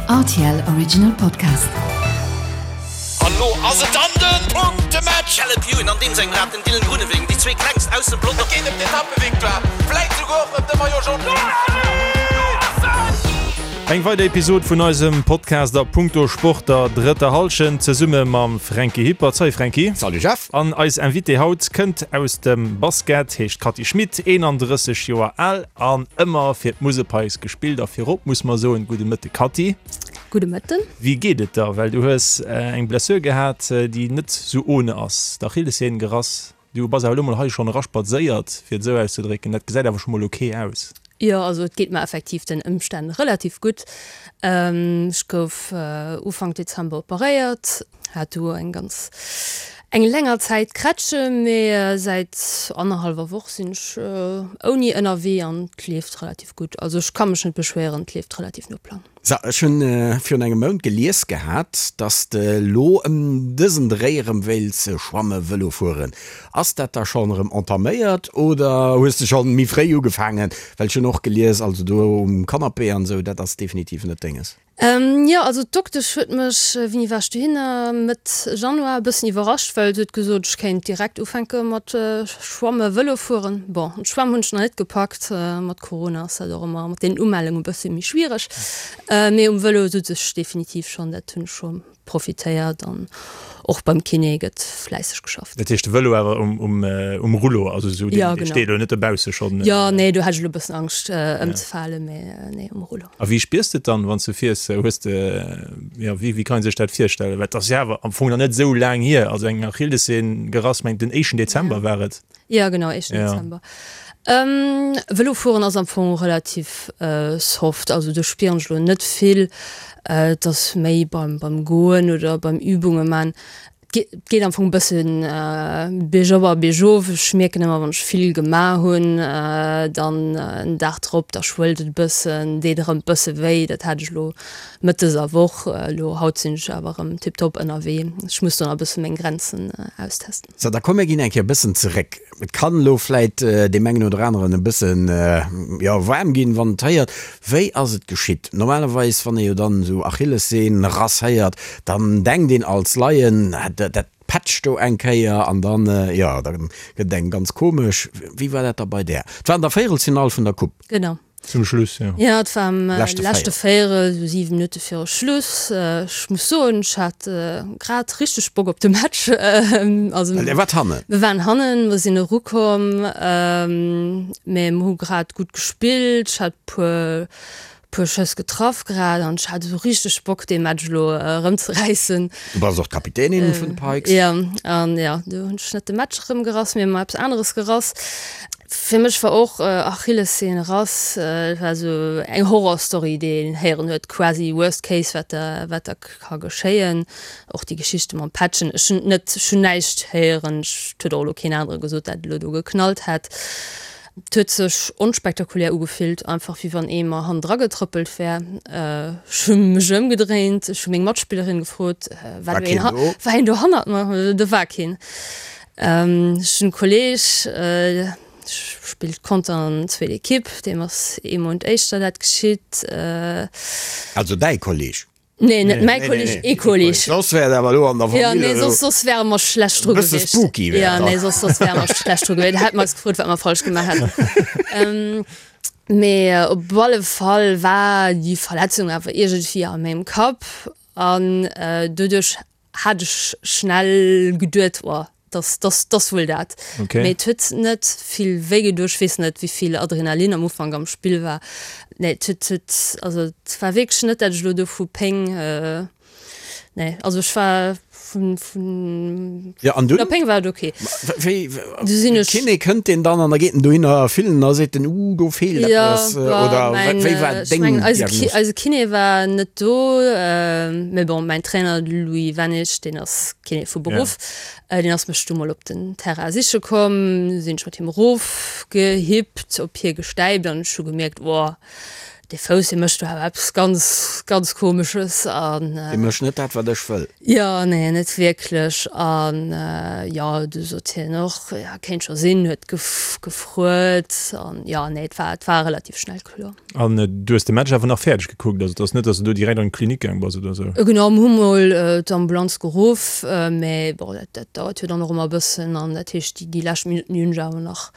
Rtl Original Podcast. An lo ass et dann den Punktematch! Caleb Ewan an deem sengem Rad, den Dylan Groenewegen, déi zwee klengst aus dem Pelotong. Et geet ëm d'Etappevictoire, vläit souguer och ëm de Maillot Jaune. Eng weider Episod vun eisem Podcast a Punkto Sport der drëtter Hallschent zesumme mam Franky Hippert. Salut Franky. Salut Jeff. An eis Invitée haut kënnt aus dem Basket, heescht Cathy Schmit, 31 Joer al an ëmmer fir d'Musel Pikes gespillt. A virop muss mer soen, gudde Mëtte Cathy. Gudde Mëtten. Wéi geet et der? Well du hues eng Blessure gehat, déi net sou ohne ass, d'Achillessehn gerass. Du bass awer elo mol hei schonn eraspadséiert, fir et esou auszedrécken. Dat gesäit awer scho mol ok aus. Jo, also et geet mer effektiv den Ëmstänn relativ gutt. Ech gouf Ufank Dezember operéiert, hat du eng ganz eng länger Zäit Krätsche, mee säit annerhallwer Woch sinn ech ouni ënnerwee an et leeft relativ gutt. Also ech ka mech net beschwéieren, et leeft relativ no Plang. So, ech hunn virun engem Mount gelies gehat, dass de lo ëm dësen Dréi erëm wéilts schwamme Vëlo fueren. Ass dat da schonn erëm entaméiert oder hues de schonn méi fréi ugefaangen? Well ech hunn och gelies, also do um Canapé an esou, dat ass definitiv net denges. Jo, also d'Doktesch huet mech, wéini war ech dohinner, Mëtt Januar, e bëssen iwwerrascht, well se huet gesot, ech kéint direkt ufänke mat schwamme Vëlo fueren. Bon, d'Schwämm hunn ech nach net gepackt, mat Corona ass dat och ëmmer mat den Umellunge e bësse méi schwiereg. Mee um Vëlo sot ech definitiv schonn, dat hunn ech scho profitéiert an och beim Kiné gëtt fläisseg geschafft. Dat heescht de Vëlo awer um Rullo, also esou, deen steet elo net dobausse schonn? Jo, nee, do hat ech elo e bëssen Angscht ëmzefalen, mee nee, um Rullo. A wéi spiers de et dann, wann s de fiers? Hues de, jo, wéi wéi kann ee sech dat virstellen? Well et ass jo awer am Fong nach net esou laang hier, also eng Achillessehn gerass, mengt den éischten Dezember war et. Jo genau, éischten Dezember. Vëlo fueren ass am Fong relativ soft, also do spieren ech elo net vill. Et ass méi beim beim Goen oder beim Übunge man. Et geet am Fong e bëssen biergop a biergof. Ech mierken ëmmer wann ech vill gemaach hunn, dann en Dag drop, da schwëllt et e bëssen, deet erëm e bësse wéi. Dat hat ech elo Mëtt dëser Woch. Elo haut sinn ech awer erëm tiptop ënnerwee. Ech muss do nach e bësse meng Grenzen austesten. Sou, da komm mir ginn eng Kéier e bëssen zeréck. Et kann elo vläit deem engen oder aneren e bëssen, jo, waarm ginn, wann en et héiert. Wéi ass et geschitt? Normalerweis, wann ee jo dann esou Achillessehn Rass héiert, dann denkt een als Laien, dat petscht do eng Kéier an dann, jo, da gëtt et engem ganz komesch. Wéi war dat da bei där? Et war an der Véierelsfinall vun der Coupe. Genau. Zum Schluss, jo. Jo, et war am leschte Véierel, esou 7 Minutte viru Schluss. Ech muss soen, ech hat grad richteg Bock op de Match. Also, Well Dir waart hannen? Mir waren hannen, mer sinn erukomm, mee mer hu grad gutt gespillt. Ech hat puer, puer Schëss getraff grad an ech hat esou richteg Bock, dee Match elo erëmzeräissen. Du bass och d'Kapitänin vun de Pikes. Jo, an jo, do hunn ech net de Match erëmgerass, mee mer eppes aneres gerass. Fir mech war och Achillessehn Rass, et war esou eng Horrorstory déi een héieren huet, quasi worst case wat da wat da ka geschéien. Och déi Geschichte mam Patchen, ech hunn net, ech hunn näischt héieren, et huet och elo keen anere gesot dat et elo do geknallt hätt. Et huet sech onspektakulär ugefillt, einfach wéi wann ee mer hannendra getrëppelt wär. Ech hu mech ëmgedréint, ech hu meng Matspillerin gefrot, war do een, war een do hannert mer? Do war keen. Ech hunn e Kolleeg, spillt Conter an zweet Ekipp, deem ass ee Mount éischter dat geschitt. Also däi Kolleeg? Nee, net mäi Kolleeg, ee Kolleeg. Soss wär et awer elo an der Famill. Jo, nee, soss, soss wäre mer schlecht dru gewiescht. E bësse spooky wär et dann. Jo, nee, soss, soss wäre mer schlecht dru gewiescht. Hätte mer eis gefrot, wat mer falsch gemaach hätten. Mee op alle Fall war déi Verletzung awer iergendwéi a mengem Kapp an doduerch hat ech schnell geduet, oh, dass, dass, dass wuel dat. Okay. Mee et huet net vill wéi gedoen. Ech weess net, wéi vill Adrenalin am Ufank am Spill war. Nee, et huet, huet, also et war wierklech net, dat ech elo do vu Péng, nee, also ech war vun, vun, Ja, an vun dunn? der Péng war et okay. Wéi, Du sinn ech. Kiné kënnt deen dann an da geet en dohinner fillen a seet en, uh, do feelt Ja, eppes, bah, oder mäin, wéi war ech deng mengen, eise Ki, Diagnos? eise Kiné war net do, mee bon, mäin Trainer, de Louis Wennig, deen ass Kiné vu Beruff, deen ass mech du mol op den Terrain siche komm, du sinn ech mat him erofgehippt, op hie gestäipt an ech hu gemierkt, oh,. Dee Fouss, dee mécht do awer eppes ganz, ganz Komesches an. Dee mécht net dat, wat ech wëll. Jo, nee, net wierklech. An jo, du sot hien och, jo, kéint scho sinn, huet gefruet. An jo, nee, et war, et war relativ schnell kloer. An du hues de Match awer nach fäerdeg gekuckt? Also et ass net, datt s du do direkt an d'Klinik gaang bass oder sou? Genau, mir hu mol d'Ambulanz geruff, mä bon, dat, dat dauert jo dann och ëmmer e bëssen. An dat heescht, déi, déi lescht Minutten, déi hunn ech awer nach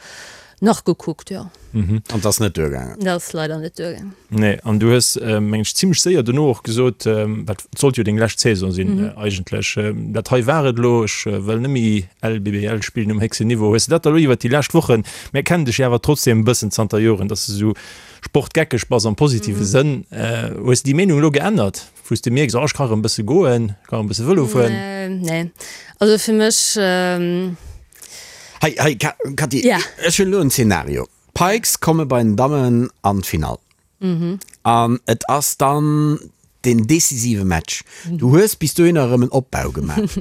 Nach gekuckt, jo. An 't ass net duergaangen? Dat ass leider net duergaangen. Nee, an du hues, meng ech, zimmlech séier dono och gesot, dat sollt jo deng lescht Saison sinn eigentlech, dat hei war et elo, ech wëll net méi LBBL spillen um héchsten Niveau. Hues de dat da elo iwwert déi lescht Wochen, mir kennen dech jo awer trotzdem e bëssen zanter Joren, dass de esou sportgeckeg bass am positive Sënn, hues de déi Meenung elo geännert, wou s de mierks, oh ech ka erëm e bësse goen, ech ka erëm e bësse Vëlo fueren? Nee, also fir mech. Hei, hei, Katy, ech hunn elo en Zeenario. D'Pikes komme bei den Dammen an d'Finall. An et ass dann den decisive Match. Du hues bis dohinner erëm en Opbau gemaach.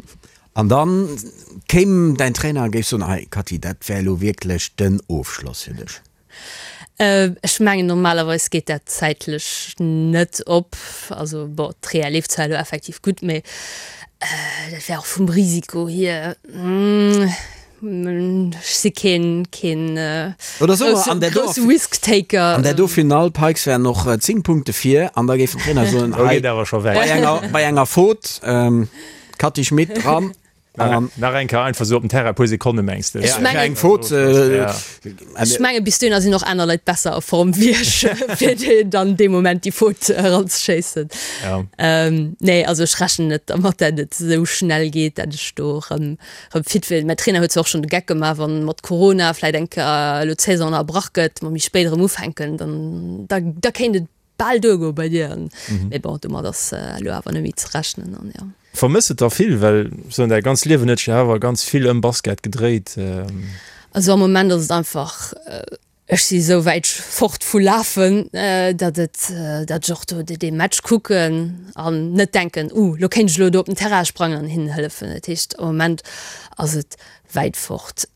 An dann kéim däin Trainer a géif soen, Hei, Katy, dat wär elo wierklech den Ofschloss fir dech. Ech mengen normalerweis geet dat zäitlech net op. Also bon, d'Rea leeft zwar elo effektiv gutt, mee dat wär och vum Risiko hier, ech si keen keen grousse Risk-Taker. An där do Finall, d'Pikes wären och 10 Punkte vir an da géif den Trainer soen, hei bei enger Faute, Cathy Schmit dran. Nach eng Kéier einfach sou op den Terrain, e puer Sekonne mengs de? Ech mengen, ech menge bis dohinner sinn och aner Leit besser a Form wéi ech, fir déi dann dee Moment déi Faute eranzeschéissen. Nee, also ech rechnen net dermat, dat et esou schnell geet, dat ech do erëm erëm fit wier. Mäin Trainer huet zwar och schonn de Geck gemaach, wann mat Corona vläit eng Kéier elo d'Saison ënnerbrach gëtt, mer méi spéit erëm ufänken, dann da da kéint et bal duergoe bei dir. Mee bon, domat ass elo awer net méi ze rechnen an jo. Vermëss et der vill? Well soen däi ganz Liewen huet sech jo awer ganz vill ëm Basket gedréit. Also am Moment ass et einfach, ech si sou wäit fort vu lafen, datt et, datt ech och do dee Match kucken an net denken, uh lo kéint ech elo do op den Terrain sprangen an hinnen hëllefen. Dat heescht am Moment ass et wäit fort.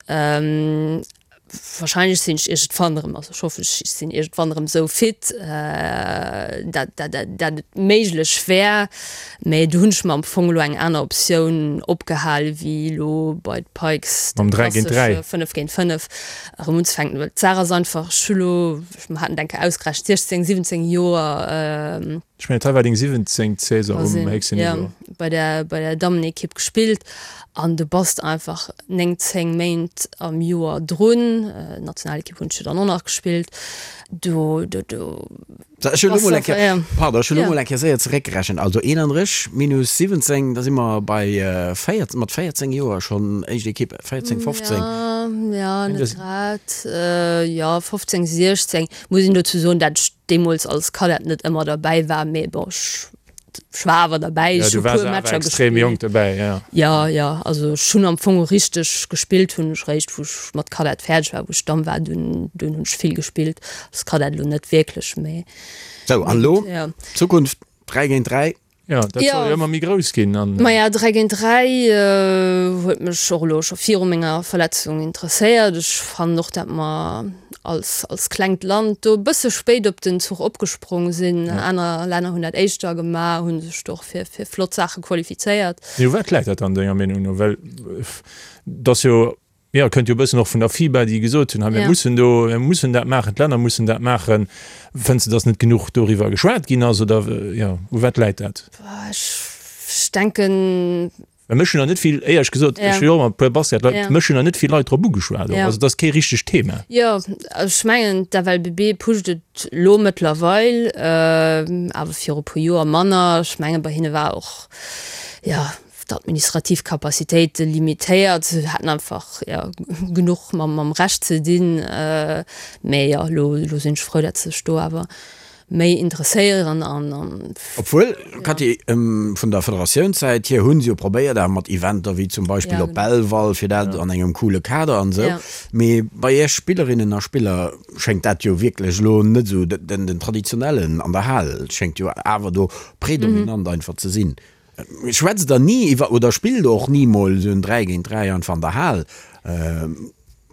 Wahrscheinlech sinn ech iergendwann erëm, also ech hoffen, ech sinn iergendwann erëm esou fit, dat dat dat et méiglech wär. Mä do hunn ech mer am Fong elo eng aner Optioun opgehal wéi elo bei d'Pikes Mam 3 géint 3. 5 géint 5 erëm unzefänken. Well d'Saach ass einfach, ech hu lo, mer haten et eng Kéier ausgerechent, 16, 17 Joer, Ech mengen, dat hei war deng 17. Saison um héchsten Niveau. Jo, bei der, bei der Dammenekipp gespillt an du bass einfach 9, 10 Méint am Joer drun. Nationalekipp hunn ech jo dann och nach gespillt. Do, do, do. So, ech hunn elo mol eng Kéier, pardon, ech hunn elo mol eng Kéier séier zeréckgerechent. Also 31 minus 17, da si mer bei 14, mat 14 Joer schonn éischt Ekipp, 14, 15. Jo, jo, net grad, jo, 15, 16. Muss een dozou soen, dat ech deemools als Kadett net ëmmer derbäi war, mee bon, ech, ech war awer derbäi, ech hu puer Matcher gespillt. Jonk derbäi, ja. Ja, ja, also ech hunn am Fong richteg gespillt hunn ech réischt, wou ech mat Kadett fäerdeg war, wou ech Damm war, dunn, dunn hunn ech vill gespillt, als Kadett elo net wierklech, mee. Sou, an elo, Zukunft 3 géint 3, Ja, dat soll jo ëmmer méi grouss ginn. An. Maja, 3 géint 3 huet mech och elo scho viru menger Verletzung interesséiert. Ech fannen och, dat mer als, als klengt Land do e bësse spéit op den Zuch opgesprong sinn. Aner Länner hunn dat éischter gemaach, hu sech do och fir, fir flott Saache qualifizéiert. Mee u wat läit dat dann denger Meenung no? Well et ass jo Jo, kënnt jo e bëssen och vun der FIBA, déi gesot hunn, hei mir mussen do, mir mussen dat maachen, d'Länner mussen dat maachen. Fënns de, datt net genuch doriwwer geschwat ginn ass oder jo, u wat läit dat? Ech denken. Well mech hunn der net vill, éierlech gesot, ech hu jo och mat e puer Basketleit, mech hunn der net vill Leit drop ugeschwat och. Also et ass kee richtegt Thema. Jo, ech mengen d'FLBB pusht et elo mëttlerweil, awer viru e puer Joer manner. Ech menge bei hinne war och, jo, d'administrativ Capacitéite limitéiert, se haten einfach jo genuch mam mam Rescht ze dinn. Mee jo, elo elo sinn ech frou, datt se sech do awer méi interesséieren an an. Obwuel, Cathy, vun der Federatiounssäit hier hu se jo probéiert awer mat Eventer wéi zum Beispill op Belval, fir dat an engem coole Kader an esou. Mee bei Iech Spillerinnen a Spiller schéngt dat jo wierklech elo net esou den den traditionellen an der Hal schéngt jo awer do predominant einfach ze sinn. Schwätzt der ni iwwer oder spillt och ni mol esou en 3 géint 3 einfach an der Hal?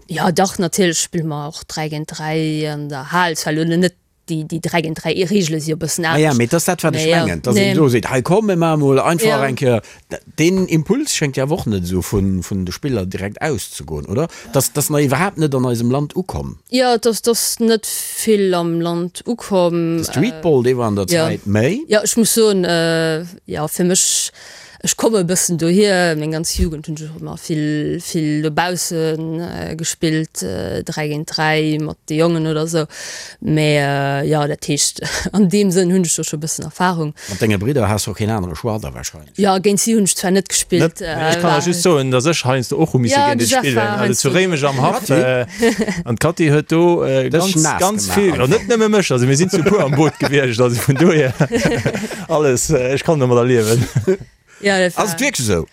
Jo dach, natierlech spille mer och 3 géint 3 an der Hal. Zwar elo net. Déi, déi 3 géint 3 Reegele si jo e bëssen Ah ja, anescht. mee et ass dat, wat ech Mee jo, mengen, dass een nee. do seet, hei komm, mir maache mol einfach Ja. eng Kéier. Deen Impuls schéngt jo awer och net esou vun, vun de Spiller direkt auszegoen, oder? Dass, dass nach iwwerhaapt net an eisem Land ukomm. Jo, et ass, et ass net vill am Land ukomm. De Streetball, dee war an der Jo. Zäit méi. Jo, ech muss soen, jo, fir mech, Ech komme e bëssen dohier, meng ganz Jugend hunn ech och ëmmer vill, vill dobausse gespillt, 3 géint 3 mat de Jongen oder esou. Mä jo, dat heescht, an deem Sënn hunn ech do scho e bëssen Erfarung. Mat denge Bridder has de och keen anere Choix da wahrscheinlech. Jo, géint si hunn ech zwar net gespillt. Ech kann der just soen, datt ech heiansdo och hu misse géint et spillen, also zu Réimech am Haff. An d'Katy huet do ganz, ganz vill, net nëmme mech, also mir sinn zu puer am Boot gewiescht, also vun dohier. Alles, ech kann domadder liewen. Ja, dat Ass et wierklech esou?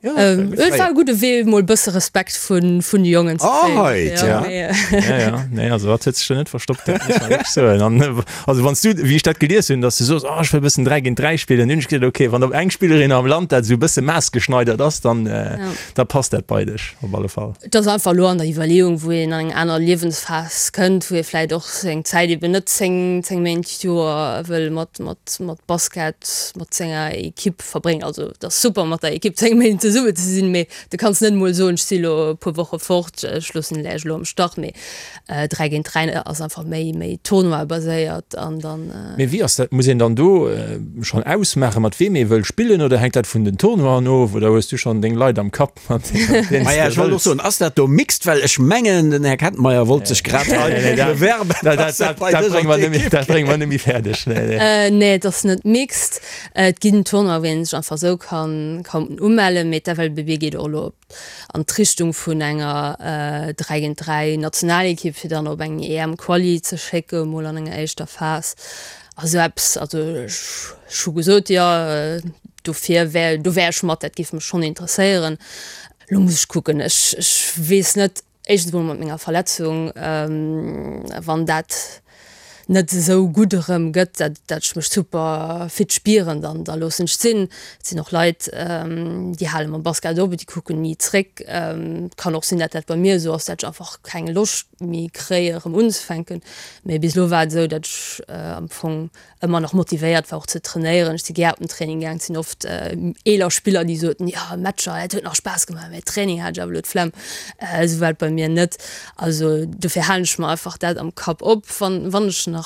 Ja, et war e gudde Wee, mol e bësse Respekt vun, vun de Jongen ze kréien. Oh, heit, ja. Ja, ja, nee, also dat huet sech jo net verstoppt, dat muss man wierklech soen. An also wann s du, wéi ech dat gelies hunn, datt s du soos, oh, ech wëll e bëssen 3 géint 3 spillen, hunn ech gesot, okay, wann op eng Spillerin am Land dat esou e bësse maßgeschneidert ass, dann, da passt dat bei dech op alle Fall. Et ass einfach elo an der Iwwerleeung, wou een an eng aner Liewensphas kënnt, wou ee vläicht och seng Zäit eben net 10, 10 Méint d'Joer wëll mat, mat, mat Basket, mat senger Ekipp verbréngen. Also et ass super mat der Ekipp 10 Méint zesumme ze sinn, mee du kanns net emol soen, ech si elo e puer Woche fort, ech loossen lech elo am Stach. Mee 3 géint 3 ass einfach méi, méi Tournoi-baséiert an dann. Mee wéi ass dat, muss een dann do schonn ausmaachen, mat weem ee wëll spillen oder hänkt dat vun den Tournoien of oder hues du schonn deng Leit am Kapp? Maja, ech wollt och soen, ass dat do mixed? Well ech mengen, den Här Kettenmeyer wollt sech grad hei bewerben. Dat brénge mer net méi fäerdeg. Nee, et ass net mixed. Et ginn Tournoien, wou ee sech einfach esou kann umellen, mee d'FLBB geet och elo an d'Richtung vun enger 3 géint 3 Nationalekipp, fir dann op eng EM-Quali ze schécke mol an enger éischter Phas. A sou eppes, also ech hu gesot, jo, dofir wär, do wär ech mat, dat géif mech schonn interesséieren. Elo muss ech kucken, ech, ech weess net, éischtens emol mat menger Verletzung, wann dat net esou gutt erëm gëtt, dat, dat ech mech super fit spieren, dann, da loossen ech et sinn. Et sinn och Leit, déi hale mam Basket op, déi kucken ni zréck. Et kann och sinn, dat dat bei mir esou ass, dat ech einfach keng Loscht méi kréie erëm unzefänken. Mee bis elo war et esou, datt ech am Fong ëmmer nach motivéiert war och ze trainéieren. Ech si gär op den Training gaang. Et sinn oft eeler Spiller, déi soten, jo Matcher, dat huet nach Spaass gemaach, mä Training hat ech awer elo d'Flemm. Esou war et bei mir net. Also dofir halen ech mer einfach dat am Kapp op, wann wann ech nach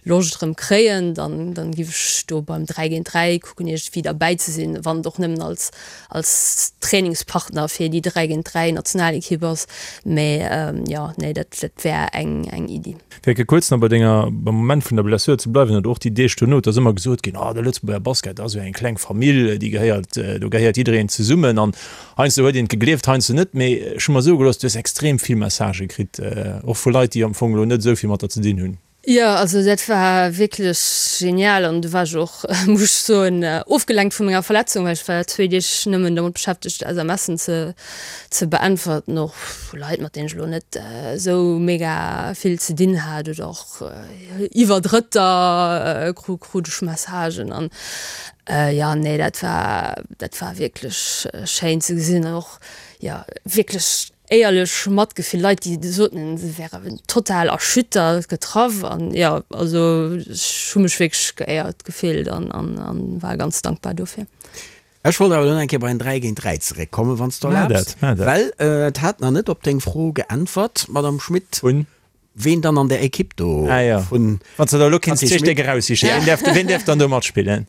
Loscht erëm kréien, dann dann giff ech do beim 3 géint 3 kucken iergendwéi derbäi ze sinn, wann et och nëmmen als als Trainingspartner fir déi 3 géint 3 Nationalekipp ass. Mee jo, nee, dat dat wär eng eng Iddi. Fir eng Kéier kuerz nach bei denger, beim Moment vun der Blessure ze bleiwen, oder och déi Deeg dono, et ass ëmmer gesot ginn, oh de Lëtzebuerger Basket ass jo eng kleng Famill, déi gehéiert, do gehéiert jiddereen zesummen. An heiansdo huet een et gegleeft, heiansdo net. Mee ech hu mer soe gelooss, du hues extrem vill Messagë kritt, och vu Leit, déi am Fong elo net esou vill mat der ze dinn hunn. Jo, also dat war wierklech genial an du war ech och, muss ech soen, ofgelenkt vu menger Verletzung, well ech war zwéi Deeg nëmmen domat beschäftegt SMSen ze ze beäntwerten, och vu Leit, mat deenen ech elo net esou mega vill ze dinn hat oder och iwwer Drëtter krut ech Messagen an jo, nee, dat war dat war wierklech schéin ze gesinn an och jo wierklech Éierlech Matgefill, Leit déi soten se wären total erschüttert, getraff an jo also ech hu mech wierklech geéiert gefillt an an war ganz dankbar dofir. Ech wollt awer elo nach eng Kéier bei den 3 géint 3 zeréckkommen, wann s de erlaabs, well et hat nach net op deng Fro geäntwert, Madame Schmit. Ween dann an der Ekipp do ah, ja. vun Wann du da lo kinns zwee Stéck eraussichen, ween däerf, ween däerf dann do matspillen?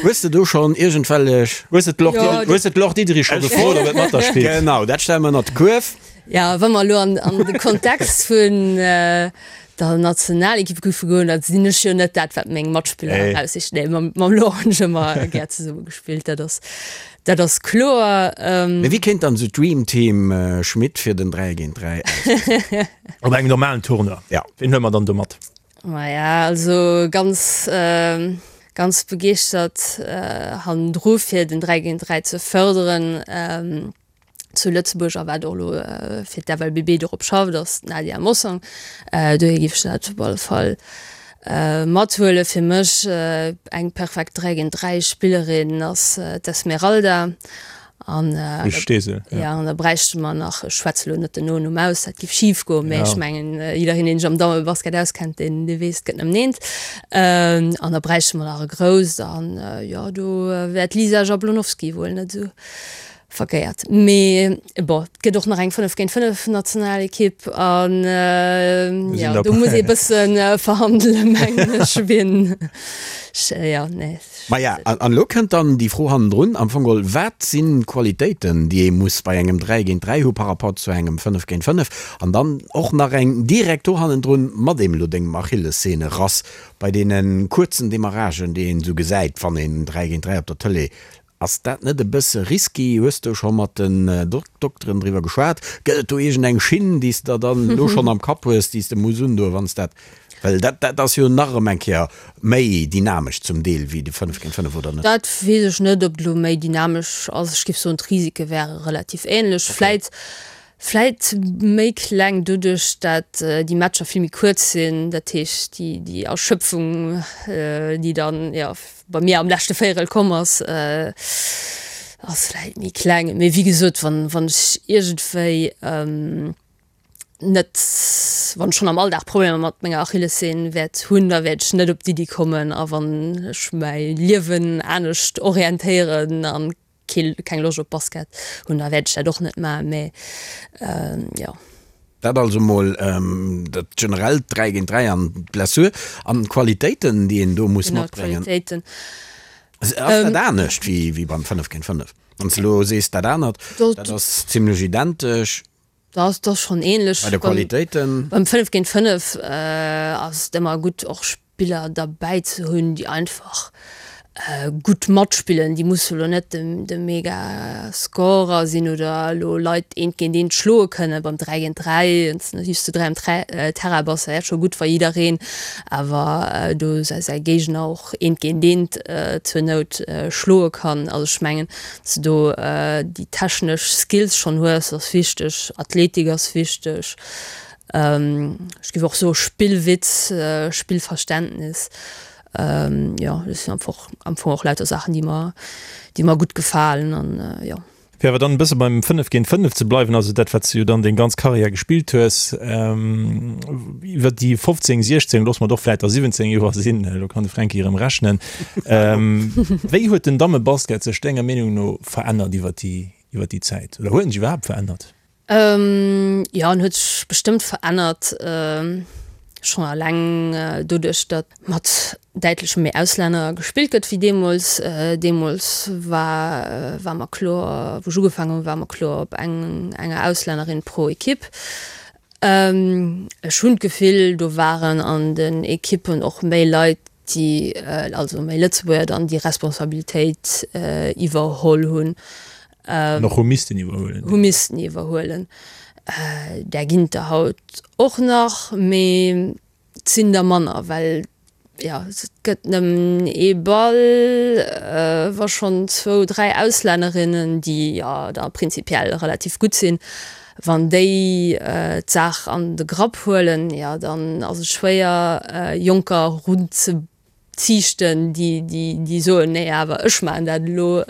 Hues de do schonn iergendwellech. Hues de d'Laure ja, hues de d'Laure Diederich scho gefrot, ob et mat der spillt? Genau, dat stelle mer ënnert de Kuerf. Ja, wa mer elo an, an de Kontext vun äh, der Nationalekipp géife goen, da sinn ech jo net dat, wat meng Matspiller nee. eraussichen. Nee, mam, mam Laure hunn ech ëmmer gär zesumme gespillt, dat ass, dat ass kloer. Ähm, Mee wéi kéint dann esou d'Dream Team Schmit fir den 3 géint 3 ausgesinn? Op engem normalen Tournoi. Ja. Ween huele mer dann do mat? Maja, also ganz, ganz begeeschtert hannendru fir den 3 géint 3 ze fërderen zu Lëtzebuerg a wat och elo fir d'FLBB dorop schafft, ass d'Nadia Mossong. Dohier géif ech dat op alle Fall mathuelen. Fir mech eng perfekt 3 géint 3 Spillerin ass d'Esmeralda. An ja an da bräichte mer nach, ech schwätze lo net den Nonumm aus, dat giff schif goen, mä ech mengen jiddereen deen sech am Dammebasket auskennt, deen dee weess et gëtt nëmmen eent. An da bräichte mer nach e grousst an jo do wär d'Lisa Jablonowski wuel net esou verkéiert. Mee bon, et gëtt och nach eng 5 géint 5 Nationalekipp an jo do muss ee bësse verhandelen mengen ech, wien jo nee. Maja, an elo kënnt dann déi Fro hannendrun, am Fong geholl, Wat sinn d'Qualitéiten, déi ee muss bei engem 3 géint 3 hu par rapport zu engem 5 géint 5? An dann och nach eng direkt do hannendrun, mat deem elo dengem Achillessehnerass, bei deene kuerzen Demarragen, déi een esou gesäit, wann een 3 géint 3 op der Tëlee, ass dat net e bësse risky? Hues de scho mat den Dokteren driwwer geschwat? Gëtt et do iergendeng Schinn, déi s de der dann elo schonn am Kapp hues, déi s de muss undoen, wann s dat Well dat, dat ass jo nach erëm eng Kéier méi dynamesch zum Deel wéi de 5 géint 5, oder net? Dat weess ech net, ob et elo méi dynamesch ass. Ech géif soen, d'Risike wäre relativ änlech. Vläit, vläit méi kleng doduerch, dat déi Matcher vill méi kuerz sinn. Dat heescht, déi, déi Erschöpfung, déi dann, jo, bei mir am leschte Véierel komm ass, ass vläit méi kleng. Mee wéi gesot, wann, wann ech iergendwéi, net, wann ech schonn am Alldag Problemer mat menger Achillessehn wäert hunn, da wäert ech net op d'Iddi kommen a wann ech mäi Liewen anescht orientéieren an kee keng Loscht op Basket hunn, da wäert ech dat och net maachen, mä jo. Dat also mol dat generellt 3 géint 3 an d'Blessur an d'Qualitéiten, déi een do muss matbréngen. Genau, d'Qualitéiten. Ass dat anescht wéi beim 5 géint 5? Wann s de elo sees dat anert, dat ass zimlech identesch. Dat ass schonn ähnlech. Bei de Qualitéiten? Beim 5 géint 5 ass et ëmmer gutt och Spiller derbäi ze hunn, déi einfach gutt matspillen. Déi musse lo net de mega Scorer sinn oder elo Leit eent géint eent schloe kënnen. Beim 3 géint 3, wann s de just zu 3 am Terrain bass, wär et scho gutt wa jiddereen awer do säi Géigner och eent géint eent zur Nout schloe kann. Also ech mengen, Dass de do déi technesch Skills schonn hues, ass wichteg. Athletik ass wichteg. Ech géif och soe Spillwitz, Spillverständnis. Jo, dat sinn einfach am Fong och lauter Saachen, déi mer, déi mer gutt gefalen an jo. Fir awer dann e bësse beim 5 géint 5 ze bleiwen, also dat, wat s de jo dann deng ganz Karriär gespillt hues, iwwer déi 15, 16, loosse mer et och vläicht der 17 Joer sinn, elo kann de Fränki erëm rechnen, Wéi huet den Dammebasket sech denger Meenung no verännert iwwer déi iwwer déi Zäit? Oder huet en sech iwwerhaapt verännert? Jo, en huet sech bestëmmt verännert, schonn eleng doduerch, datt mat däitlech méi Auslänner gespillt gëtt wéi deemools. Deemools war war mer kloer, wou ech ugefaangen hunn, war mer kloer op eng enger Auslännerin pro Ekipp. Ech hunn d'Gefill, do waren an den Ekippen och méi Leit, déi, also méi Lëtzebuerger dann, déi Responsabilitéit iwwerholl hunn. An och hu missten iwwerhuelen. Hu missten iwwerhuelen. Där ginn et der haut och nach, mee et sinn der manner, well jo, et gëtt nëmmen ee Ball, wa schonn zwou, dräi Auslännerinnen, déi jo da prinzipiell relativ gutt sinn, wann déi d'Saach an de Grapp huelen, jo dann ass et schwéier, Jonker erunzeziichten, déi, déi soen, nee awer ech maachen dat elo.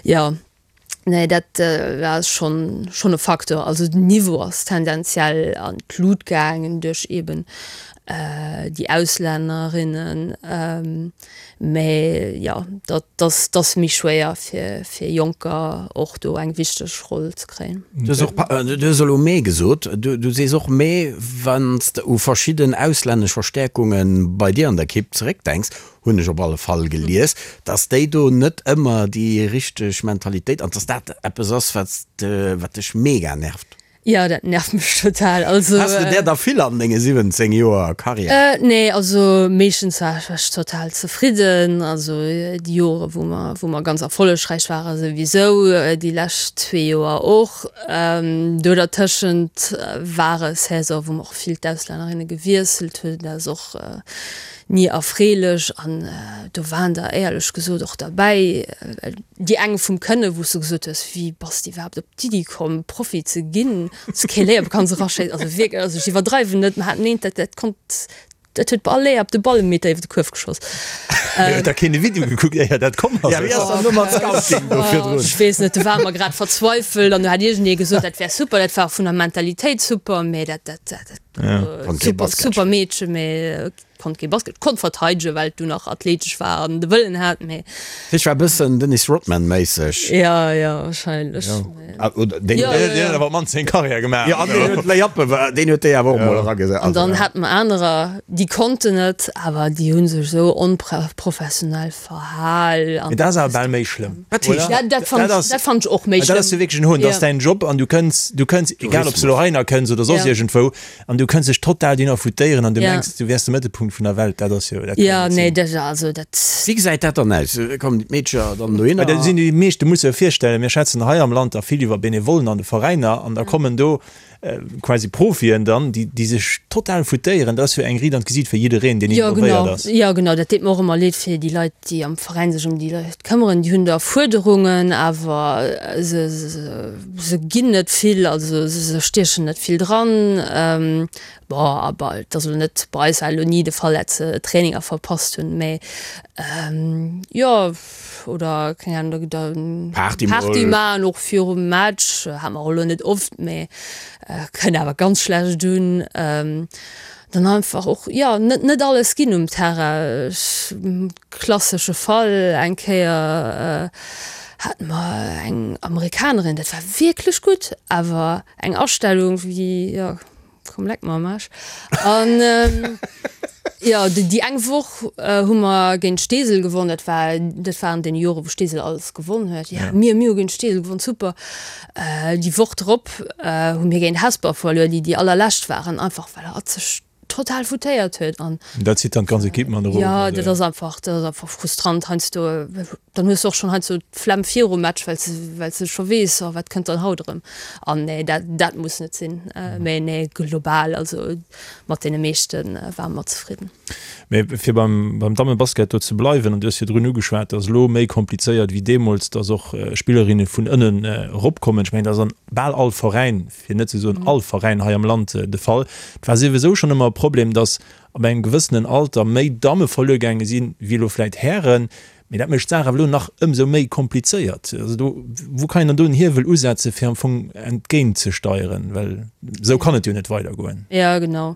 Jo, nee dat ass schonn, schonn e Facteur. Also den Niveau ass tendenziell an d'Lut gaangen duerch eeben déi Auslännerinnen. Mä jo, dat ass méi schwéier fir Jonker och do eng wichteg Roll ze kréien. Du hues och, du hues elo mee gesot, du sees och mee, wann s de u verschidden auslännesch Verstäerkunge bei dir an der Ekipp zeréckdenks, hunn ech op alle Fall gelies, datt déi do net ëmmer déi richteg Mentalitéit an datt dat eppes ass, wat dech mega nervt. Jo, dat nervt mech total. Also, Has de där der vill an denge 17 Joer Karriär? Nee, also meeschtens war ech total zefridden. Also déi Jore wou mer, wou mer ganz erfollegräich ware souwisou, déi lescht zwee Joer och. Do dertëschent war e Saison, wou mer och vill d'Auslännerinne gewiesselt hunn. Dat ass och ni erfreelech an do waren der éierlech gesot och derbäi, déi eng vum Kënne wou s du gesot hues, wéi bass de iwwerhaapt op d'Iddi komm Profi ze ginn, s kee Léier kanns eraschéissen, also wierklech, also ech iwwerdreiwen net, mer haten eent, dat dat konnt. Dat huet bei all Layup de Ball e Meter iwwer de Kuerf geschoss. Mee huet da keen de Video gekuckt éier dat komm ass? Ja, wéi ass dann elo mat Scouting do virdrun? Ech weess net, do ware mer grad verzweifelt an do hat iergendee gesot, dat wär super, dat war och vun der Mentalitéit super, mee dat, dat, dat, Konnt kee super, Basket super Meedche, mee konnt kee Basket, konnt verteidegen, well et du nach athletesch war an de Wëllen hat, mee. Ech war e bëssen Dennis Rodman-méisseg. Ja, ja, wahrscheinlech. Oder deen Ja, ja, ja. awer mannst seng Karriär gemaach. Jo, an deen huet Layuppe, deen huet déi awer och mol eragesat. An dann hate mer anerer, déi konnten et, awer déi hu sech esou onprofessionell verhal. Mee dat ass awer bal méi schlëmm, Wat heescht oder? Ja, dat fannen ech, dat fannen ech och méi schlëmm. Dat ass jo wierklech en Hohn. Dat ass däin Job an du kënns, du kënns, egal ob s du elo heihinner kënns oder soss iergendwou, An du kënns dech total dohinner foutéieren an du mengs, du wäers de Mëttelpunkt vun der Welt. Dat ass jo, dat kann jo net sinn. Dat, also dat. Wéi gesäit dat dann aus? Kommen déi Meedcher dann dohinner? Well dat sinn déi meescht, du muss der virstellen, mir schwätzen hei am Land da vill iwwer Benevollen an de Veräiner an da kommen do quasi Profien dann, déi, déi sech total foutéieren. Dat ass jo eng Riit an d'Gesiit fir jiddereen, deen involvéiert ass. Jo, genau, dat deet mer och ëmmer leed fir déi Leit, déi am Veräin sech ëm déi Leit këmmeren. Déi hunn da Fuerderungen, awer se, se, Se ginn net vill, also se stiechen net vill dran. Bon, awer et ass elo net, bei eis war elo ni de Fall, dat se Traininger verpasst hunn, mä jo, oder keng Ahnung, da Party mol. Party maachen och virum Match, hat mer och elo net oft, mä kënnt awer ganz schlecht un. Dann einfach och, jo, net net alles ginn um Terrain. Ech. Klassesche Fall, eng Kéier hate mer eng Amerikanerin, dat war wierklech gutt, awer eng Astellung wéi, jo, komm leck mer am Aarsch. An jo, déi eng Woch hu mer géint Steesel gewonn, dat war, dat war an deene Jore wou Steesel alles gewonn huet, jo, mir, mir hu géint Steesel gewonn, super. Déi Woch drop hu mir géint Hesper verluer, déi déi allerlescht waren, einfach well hatt sech total foutéiert huet an. Dat zitt dann d'ganz Equipe mat erof. Jo, dat ass einfach, dat ass einfach frustrant heiansdo. Dann hues de och schonn heiansdo d'Flemm virum Match, well s de, well s de scho weess, oh wat kënnt dann haut erëm. An nee, dat, dat muss net sinn. Mee nee, global, also mat deene meeschte ware mer zefridden. Mee fir beim, beim Dammebasket do ze bleiwen, an du hues virdrun ugeschwat, dat ass elo méi komplizéiert wéi deemools, dass och Spillerinne vun ënnen eropkommen. Ech mengen, dat ass an bal all Veräin fir net ze soen all Veräin hei am Land de Fall. Et war souwisou schonn ëmmer e Problem, datt ab engem gewëssenen Alter méi Damme verluer gaange sinn, wéi elo vläit Hären. Mee dat mécht d'Saach awer elo nach ëmsou méi komplizéiert. Also do, wou kann een dann do en Hiewel usetzen, fir am Fong entgéintzesteieren? Well esou kann et jo net weidergoen. Jo, genau.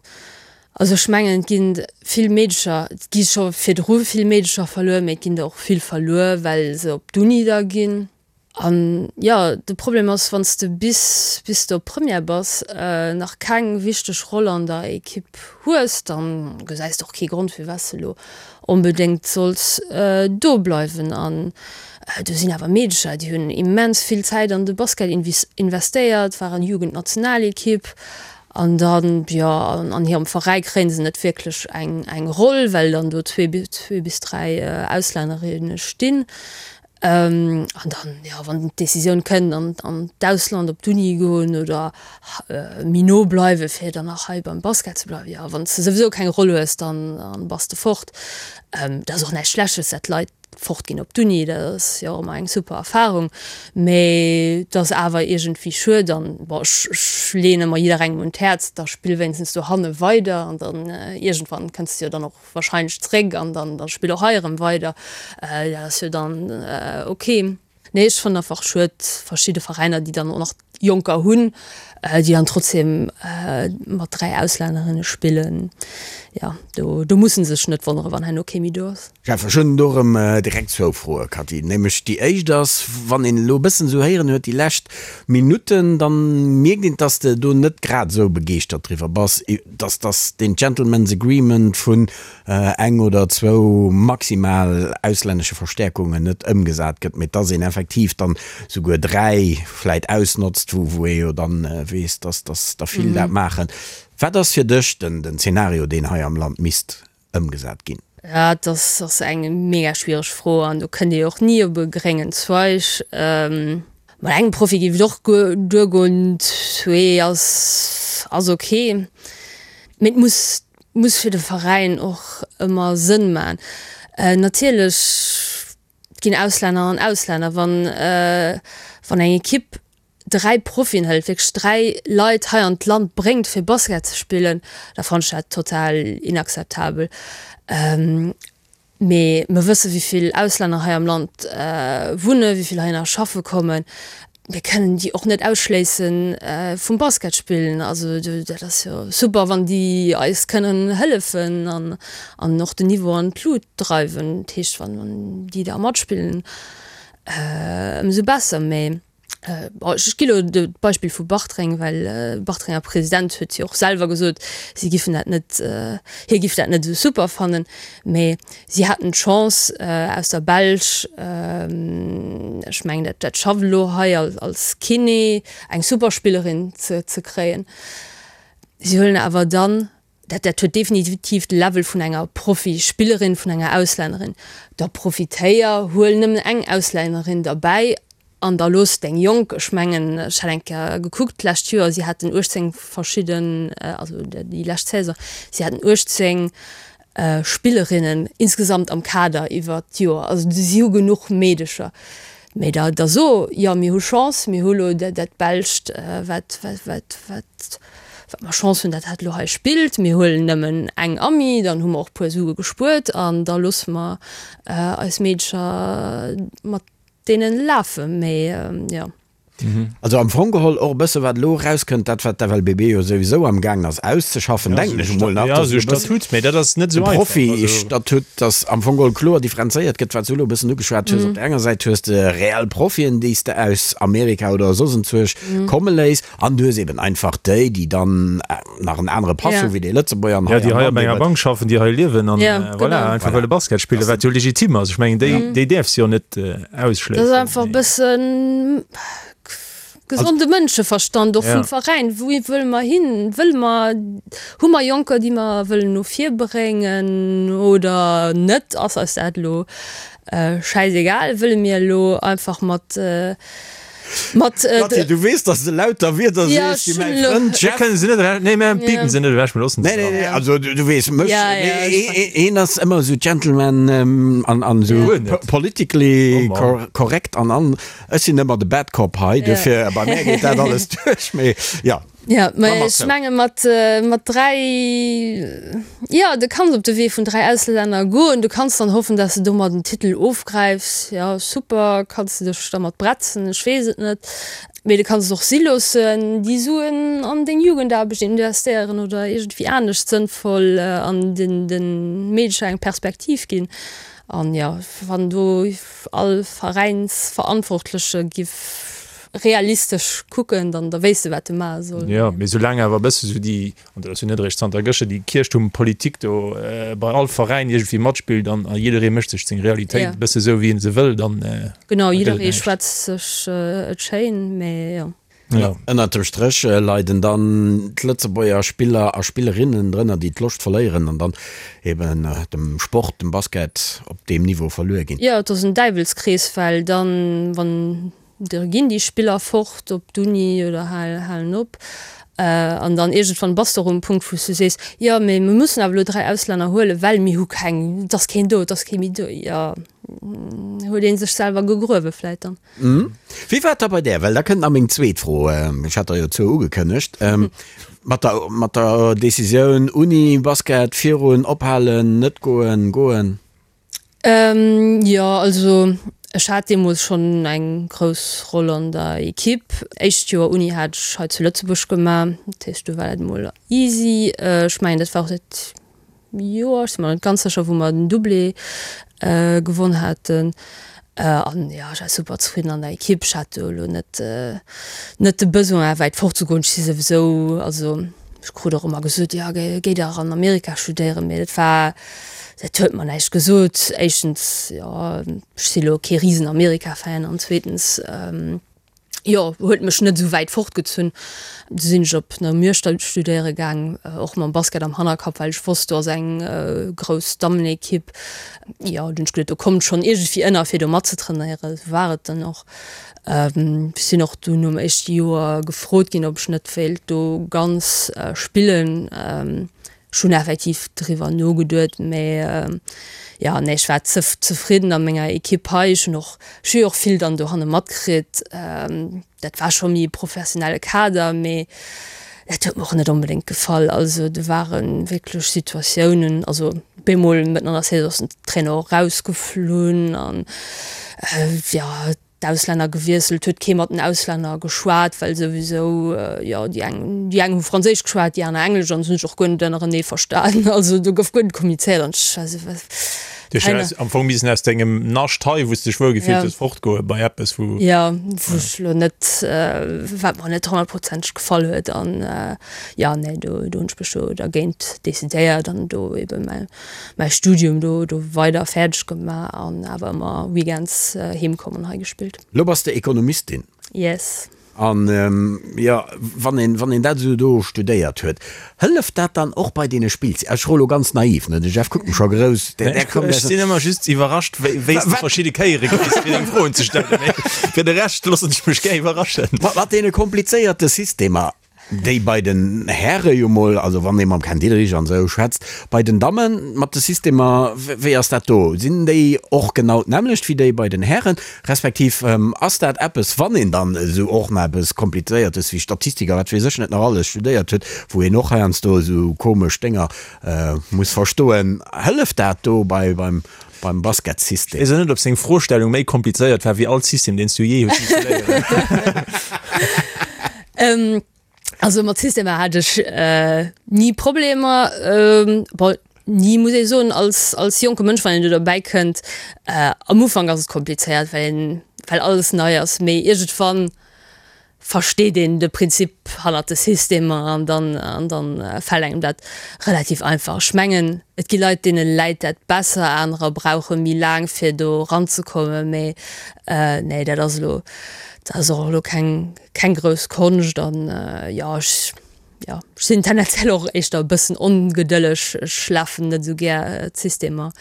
Also ech mengen, et ginn vill Meedecher, et gi scho virdru vill Meedecher verluer, mee et ginn der och vill verluer, well se op d'Uni da ginn. An jo, de Problem ass, wann s de bis bis de op Première bass, nach keng wichteg Roll an der Ekipp hues, dann gesäis de och kee Grond, firwat s de elo onbedéngt solls do bleiwen. An do sinn awer Meedecher, déi hunn immens vill Zäit an de Basket investéiert, waren Jugendnationalekipp an dann, jo, an hirem Veräi kréie se net wierklech eng eng Roll, well dann do zwee bis dräi Auslännerinne stinn. An dann, jo, wann d'Decisioun kënnt, an an d'Ausland op d'Uni goen oder méi no bleiwen, fir dann nach hei beim Basket ze bleiwen, jo, wann s de souwisou keng Roll hues, dann bass de fort. Dat ass och näischt Schlechtes, dat d'Leit fortginn op d'Uni, dat ass jo och ëmmer eng super Erfarung, mee et ass awer iergendwéi schued. An bon, ech ech leeën ëmmer jidderengem un d'Häerz, da spill wéinstens dohanne weider an dann iergendwann kënns de jo dann och wahrscheinlech zréck an dann dann spill och hei erëm weider, dat ass jo dann ok. Nee ech fannen einfach schued verschidde Veräiner déi dann och nach Jonker hunn, déi dann trotzdem mat 3 Auslännerinne spillen, jo do do mussen se sech net wonnere wann herno kee méi do ass. Jeff, ech hunn do erëm direkt zwou Froe, Cathy. Nämlech déi éischt ass, wann een elo e bëssen esou héieren huet déi lescht Minutten, dann mierkt een, dass de do net grad esou begeeschtert driwwer bass, dass dass deen Gentlemen's Agreement vun eng oder zwou maximal auslännesche Verstäerkungen net ëmgesat gëtt, mee dass een effektiv dann souguer 3 vläit ausnotzt, wou wou ee jo dann weess, dass dass der vill dat maachen. Wat ass fir dech den den Zeenario, deen hei am Land misst ëmgesat ginn? Dat ass eng mega schwiereg Fro an do kënnt ee och ni op e gréngen Zweig. Mat engem Profi géif et och duergoen, zwee ass ass ok. Mee et muss muss fir de Veräin och ëmmer Sënn man. Natierlech, et ginn Auslänner an Auslänner. Wann wann eng Ekipp. 3 Profien hëlt, wierklech 3 Leit hei an d'Land bréngt fir Basket ze spillen, da fannen ech dat total inakzeptabel. Mee mer wësse wéi vill Auslänner hei am Land wunnen, wéi vill heihinner schaffe kommen. Mir kënnen déi och net ausschléisse vum Basket spillen. Also dat ass jo super, wann déi eis kënnen hëllefen an an och den Niveau an d'Lut dreiwen. Dat heescht, wann déi da matspillen, ëmsou besser. Mee Ech gi lo d'Beispill vu Bartreng, well de Bartrenger President huet jo och selwer gesot, si giffen dat net, hie giff dat net esou super fannen. Mee si haten d'Chance aus der Belsch, ech mengen dat dat schafft elo hei als Kiné, eng super Spillerin ze ze kréien. Si huelen awer dann, dat dat huet definitiv de Level vun enger Profispillerin, vun enger Auslännerin. Da profitéier, huel nëmmen eng Auslännerin derbäi an da looss deng Jonk, ech mengen, ech hat eng Kéier gekuckt d'lescht Joer, si haten 18 verschidden, also déi lescht Saison, si haten 18 Spillerinnen insgesamt am Kader iwwert d'Joer. Also si hu genuch Meedecher. Mee da da so, jo mir hu Chance, mir hu lo dat Belscht, wat wat wat wat wat mer Chance hunn, dat hat lo hei spillt. Mir huelen nëmmen eng Amie, dann hu mer och puer Sue gespuert an da loosse mer eis Meedecher mat deenen lafen. Mee jo. Also am Fong geholl och e bësse wat elo erauskënnt, dat wat d'FLBB jo souwisou am gaangen ass auszeschaffen, denken ech emol nach, dass e Statut, mee dat ass net esou einfach. Profi-Statut, dass am Fong geholl kloer differenzéiert gëtt, wat s du elo e bëssen ugeschwat hues. Op der enger Säit hues de reell Profien, déi s de aus Amerika oder soss enzwuesch komme léiss, an du hues eben einfach déi, déi dann nach en anere Pass hu wéi déi Lëtzebuerger an hei am Land. Ja, déi hei op enger Bank schaffen, déi hei liewen an voilà, einfach wëlle Basket spillen, wat jo legitim ass. Ech mengen, déi, déi däerfs jo net ausschléissen. Dat ass einfach e bëssen gesonde Mënscheverstand och vum Veräin. Wou wëlle mer hin? Wëlle mer, hu mer Jonker, déi mer wëllen no vir bréngen oder net? Ass eis dat elo schäisegal? Wëlle mir elo einfach mat Mat, äh, Kathi, du weess, dass de lauter Wierder Ja, sees, déi mäi Frënd Jeff. Kënnen se net ewech, nee, mir pipen se net ewech, mir loossen se Nee, nee, nee, also du, du weess, mech, Ja, ja, nee, ech ee- een ass ëmmer esou Gentleman ähm, an, an esou Guer net. po- politically Oh Mann. cor correct an an ech sinn ëmmer de Bad Cop hei, dofir bei mär geet dat alles duerch, mee ja. Ja, Ma mä mat ech zou. menge mat, mat 3, jo, du kanns op de Wee vun 3 Auslänner goen, du kanns dann hoffen, dass de domat en Titel ofgräifs, jo, super, kanns de dech dermat bretzen, ech weess et net, mee du kanns et och si loossen, déi Suen an deng Jugendaarbecht investéieren oder iergendwéi anescht sënnvoll an den, de Meedecher eng Perspektiv ginn. An jo, wann do all Veräinsverantwortleche giff realistesch kucken, dann da wéisst de wat de maache soll. Jo, mee soulaang awer e bësse sou déi, an dat ass jo net eréischt zanter gëschter, déi Kierchtuermpolitik do bei all Veräin iergendwéi matspillt an a jidderee mécht sech seng Realitéit e bësse sou wéi en se wëll, dann Genau, da gëtt et jidderee näischt. schwätzt sech et schéin, mee jo. Jo. Ënnert dem Stréch leiden dann d'Lëtzebuerger Spiller a Spillerinnen drënner, déi d'Loscht verléieren an dann eben dem Sport, dem Basket op deem Niveau verluer ginn. Jo, et ass en Däiwelskrees, well dann, wann Da ginn déi Spiller fort op d'Uni oder halen op. An dann iergendwann bass de och um Punkt, wou s du sees, jo, mee mir mussen awer elo 3 Auslänner huelen, well mir hu keng, et ass keen do, et ass kee méi do. Jo, huet ee sech selwer gegruewe vläit dann. Wéi war et da bei där? Well da kënnt nach meng zweet Fro, ech hat der jo zwou ugekënnegt, mat der, mat der Decisioun Uni, Basket, virun, ophalen, net goen, goen. Jo, also ech hat deemools schonn eng grouss Roll an der Equipe. Éischt Joer Uni hat ech hei zu Lëtzebuerg gemaach, dat heescht do war dat emol easy. Ech mengen dat war och dat Joer, ech si mer net ganz sécher, wou mer den Doublé gewonn haten. An jo, ech war super zefridden an der Equipe. Ech hat do elo net net de Besoin wäit fort ze goen. Ech si souwisou, also ech krut och ëmmer gesot, jo géi dach an Amerika studéieren, mee dat war, Dat huet mer näischt gesot. Éischtens, jo, ech si lo kee risen Amerika-Fan an zweetens, jo, huet mech net esou wäit fortgezunn. Du sinn ech op Namur studéiere gaang, och mam Basket am Hannerkapp, well ech wosst, do ass eng grouss Dammenekipp. Jo, dunn hunn ech geduet, do kommt schonn iergendwéi ënner, fir do matzetrainéieren. Esou war et dann och. Ech sinn och dunn nom éischte Joer gefrot ginn, ob ech net wéilt do ganz spillen. Ech hunn effektiv driwwer nogeduet, mä jo, nee, ech war ze zefridden a menger Ekipp hei. Ech hunn och, ech hu jo och vill dann dohanne matkritt. Dat war scho méi e professionelle Kader, mee dat huet mer och net onbedéngt gefall. Also do ware wierklech Situatiounen, also bemol mëtten an der Saison ass den Trainer och rausgeflunn an jo, d'Auslänner gewiesselt, huet kee mat den Auslänner geschwat, well souwisou, jo, déi eng, déi eng hu Franséisch geschwat, déi aner Englesch an se hunn sech och guer net ënnerenee verstan. Also do gouf guer net kommunizéiert an ech war esou, wat, Du hues jo am Fong missen aus dengem Nascht hei, wou s de dech wuel gefillt hues, fortgoe bei eppes, wou. Jo, wou ech elo net, wat mer net honnertprozenteg gefall huet an jo, nee, do, do hunn ech mech do dergéint decidéiert an do ebe mäi mäi Studium do do weider fäerdeg gemaach an awer ëmmer Weekends heem komm an hei gespillt. Lo bass de Ekonomistin. Yes. An jo, wann een, wann een dat esou do studéiert huet, hëlleft dat dann och bei deene Spillz-, ech froe lo ganz naiv, ne, de Jeff kuckt mech scho grouss, där, där kommt Ech sinn ëmmer just iwwerrascht, wéi, wéi s de verschidde Kéiere kriss, fir deng Froen ze stellen, mee fir de Rescht loossen ech mech gär iwwerraschen. Mat deene komplizéierte Systemer, Déi bei den Häre jo mol, also wann ee mam Ken Diederich an esou schwätzt. Bei den Dammen mat de Systemer, wéi ass dat do? Sinn déi och genau d'nämmlecht wéi déi bei den Hären? Respektiv ass dat eppes, wann een dann esou och nach eppes Komplizéiertes wéi Statistik a wat weess ech net nach alles studéiert huet, wou een och heiansdo esou komesch Dénger muss verstoen, hëlleft dat do bei beim beim Basketsystem? Ech weess och net, ob seng Froestellung méi komplizéiert war wéi all System, deen s du jee hues misse léieren. Also mat Systemer hat ech ni Problemer. Bon, ni muss ee soen, als, als jonke Mënsch, wann een do derbäi kënnt, am Ufank ass et komplizéiert, well een, well alles nei ass, mee iergendwann versteet een de Prinzip hannert de Systemer an dann, an dann fält engem dat relativ einfach. Ech mengen, et gi Leit, deene läit dat besser, anerer brauche méi laang fir do eranzekommen, mee nee, dat ass elo, dat ass och elo keng, Keng grouss Konscht an jo ech jo ech sinn tendenziell och éischter e bëssen ongedëlleg. Ech lafen net esou gär d'Systemer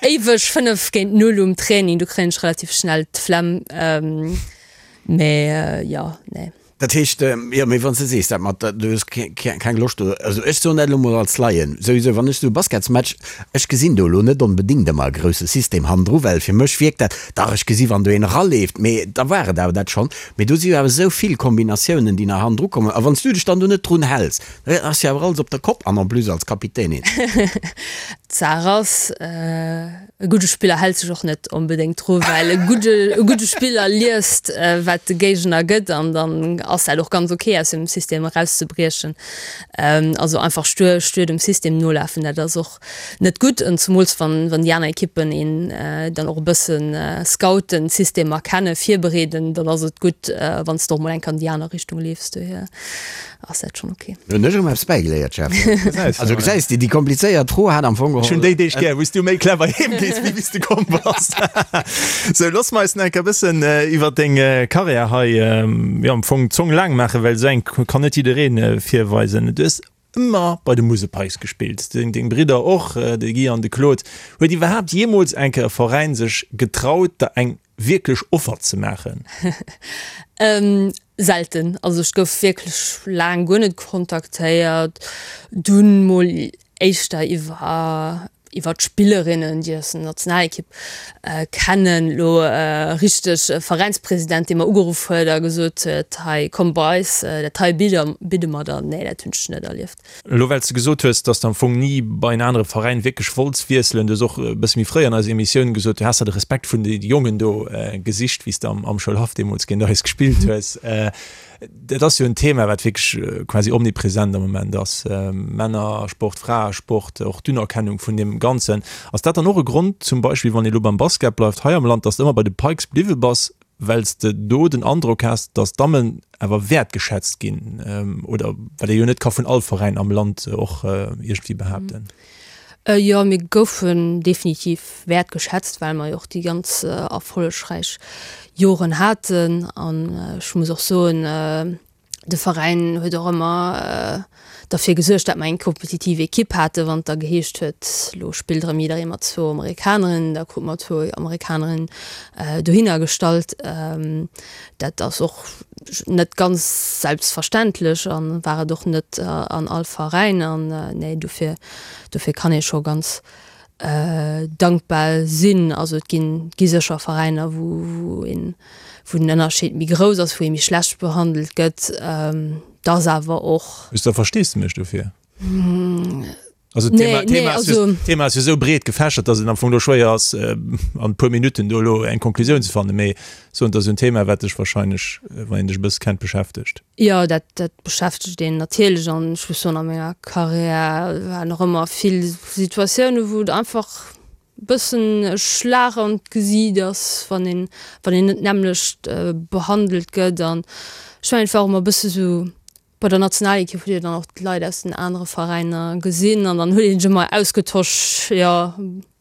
éiweg 5 géint 0 um Training, do kréien ech relativ schnell d'Flemm. Mee jo nee. Dat heescht, jo, mee wann s de sees dat mat, du hues keng Loscht do, also ech soen dat elo mol als Laien, souwisou wann ech esou e Basketsmatch, ech gesinn do elo net onbedéngt ëmmer e grousse System hannendru, well fir mech wierkt dat, Dach, ech gesi wann do een eraleeft, mee da war et awer dat schonn. Mee do si jo awer esou vill Kombinatiounen, déi nach hannendru kommen. A wann s du dech dann do net drun häls, da ass jo awer alles op der Kopp an en plus als Kapitänin. D'Saach ass, e gudde Spiller hält sech och net onbedéngt dru, well e gudde, e gudde Spiller liest, wat de Géigner gëtt an dann ass dat och ganz ok, aus dem System erauszebriechen. Also einfach stuer, stuer dem System nolafen, dat ass och Net gutt, en zemools wann wann déi aner Ekippen een dann och e bëssen scouten, d'Systemer kennen, virbereeden, dann ass et gutt wann s de och mol eng Kéier an déi aner Richtung leefs. Dohier ass dat schonn ok. Hunn ech erëm eppes bäigeléiert, Jeff. Also gesäis de, déi komplizéiert Fro hat am Fong geholl. Ech hunn déi Deeg gär, wou s du méi clever heem gees, wéi wéi s de komm bass. Sou, looss mer eis nach eng Kéier e bëssen iwwer deng Karriär hei, jo, am Fong d'Zong laang maachen, well esou eng kann net jiddereen virweisen. Du hues Ëmmer bei de Musel Pikes gespillt, deng Bridder och, de Guy an de Claude. Huet iwwerhaapt jeemools eng Kéier e Veräin sech getraut, der eng wierklech Offer ze maachen? Selten. Also ech gouf wierklech laang guer net kontaktéiert. Dunn mol éischter iwwer iwwer d'Spillerinnen, déi aus der Nationalekipp kennen. Elo richteg e Veräinspresident, dee mer ugeruff huet a gesot huet, hei komm bei eis, dat hei bidde mer der. Nee, dat hunn ech net erlieft. Elo well s de gesot hues, dass de am Fong ni bei en anere Veräin wierklech wollts wiesselen, du hues och e bësse méi fréi an eiser Emissioun gesot, du häss der de Respekt vun de Jongen do gesicht, wéi s de am Schoulhaff deemools géint eis gespillt hues. Dat ass jo en Thema, wat wierklech quasi omnipresent am Moment ass, Männersport, Fraesport, och d'Unerkennung vun deem Ganzen. Ass dat dann och e Grond zum Beispill, wann ee lo beim Basket bleift hei am Land, dass de ëmmer bei de Pikes bliwwe bass, well s de do den Androck has, dass d'Dammen awer wäertgeschätzt ginn, oder wat ee jo net ka vun all Veräin am Land och iergendwéi behaapten? Jo, mir goufen definitiv wäertgeschätzt, well mer jo och déi ganz erfollegräich Joren haten. An ech muss och soen, De Veräin huet och ëmmer derfir gesuergt, dat mer eng kompetitiv Ekipp haten. Wann et da geheescht huet, lo spillt erëm jidderee mat zwou Amerikanerinnen, da krute mer zwou Amerikanerinnen dohinner gestallt. Dat ass och net ganz selbstverständlech a war et och net an all Veräin. An nee, dofir, dofir kann ee scho ganz dankbar sinn. Also et ginn, gi sécher Veräiner, wou, wou een, wou den Ënnerscheed méi grouss ass, wou ee méi schlecht behandelt gëtt. Et ass awer och. Hues de Versteesdemech dofir? Also d'Thema, nee, nee, also, Thema ass jo esou breet gefächert, datt et am Fong do schwéier ass, an e puer Minutten do elo eng Konklusioun ze fannen. Mee soen, et ass en Thema, wat dech wahrscheinlech, wann een dech e bësse kennt, beschäftegt. Jo, dat, dat beschäftegt een natierlech an ech muss soen, a menger Karriär waren och ëmmer vill Situatiounen, wou et einfach e bëssen e Schlag an d'Gesiit ass, wann een, wann een net d'nämmlecht behandelt gëtt. An ech mengen, et war och ëmmer e bësse sou, bei der Nationalekipp hutt Dir dann och d'Leit aus den anere Veräiner gesinn an dann huet een sech ëmmer ausgetosch, jo,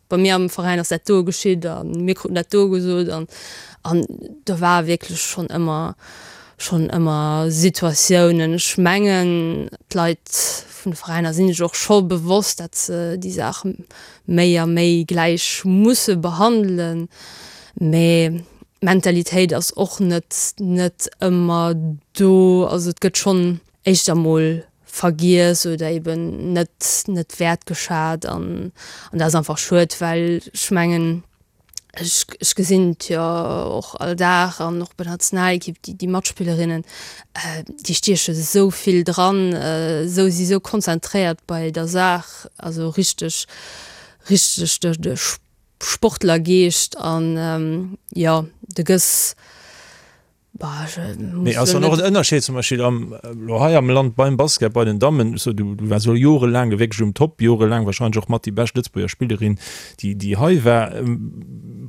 Bei mir am Veräin ass dat do geschitt a mir kruten dat do gesot an an do war wierklech schonn ëmmer schonn ëmmer Situatiounen. Ech mengen d'Leit vun de Veräiner sinn sech och scho bewosst, dat se déi Saach méi a méi gläich musse behandelen, mä d'Mentalitéit ass och net net ëmmer do. Also et gëtt schonn éischter mol vergiess oder eben net net wäertgeschat an an dat ass einfach schued, well ech mengen ech ech gesinn et jo och all Dag an och bei der Nationalekipp déi déi Matspillerinnen déi stieche sou vill dran, sou si sou konzentréiert bei der Saach, also richteg richteg de de Sportlergeescht an jo de gëss Mee ass dann och en Ënnerscheed zum Beispill am, elo hei am Land beim Basket bei den Dammen, so du du waars elo jorelaang wierklech um Top, jorelaang wahrscheinlech och mat déi bescht Lëtzebuerger Spillerin déi déi hei war.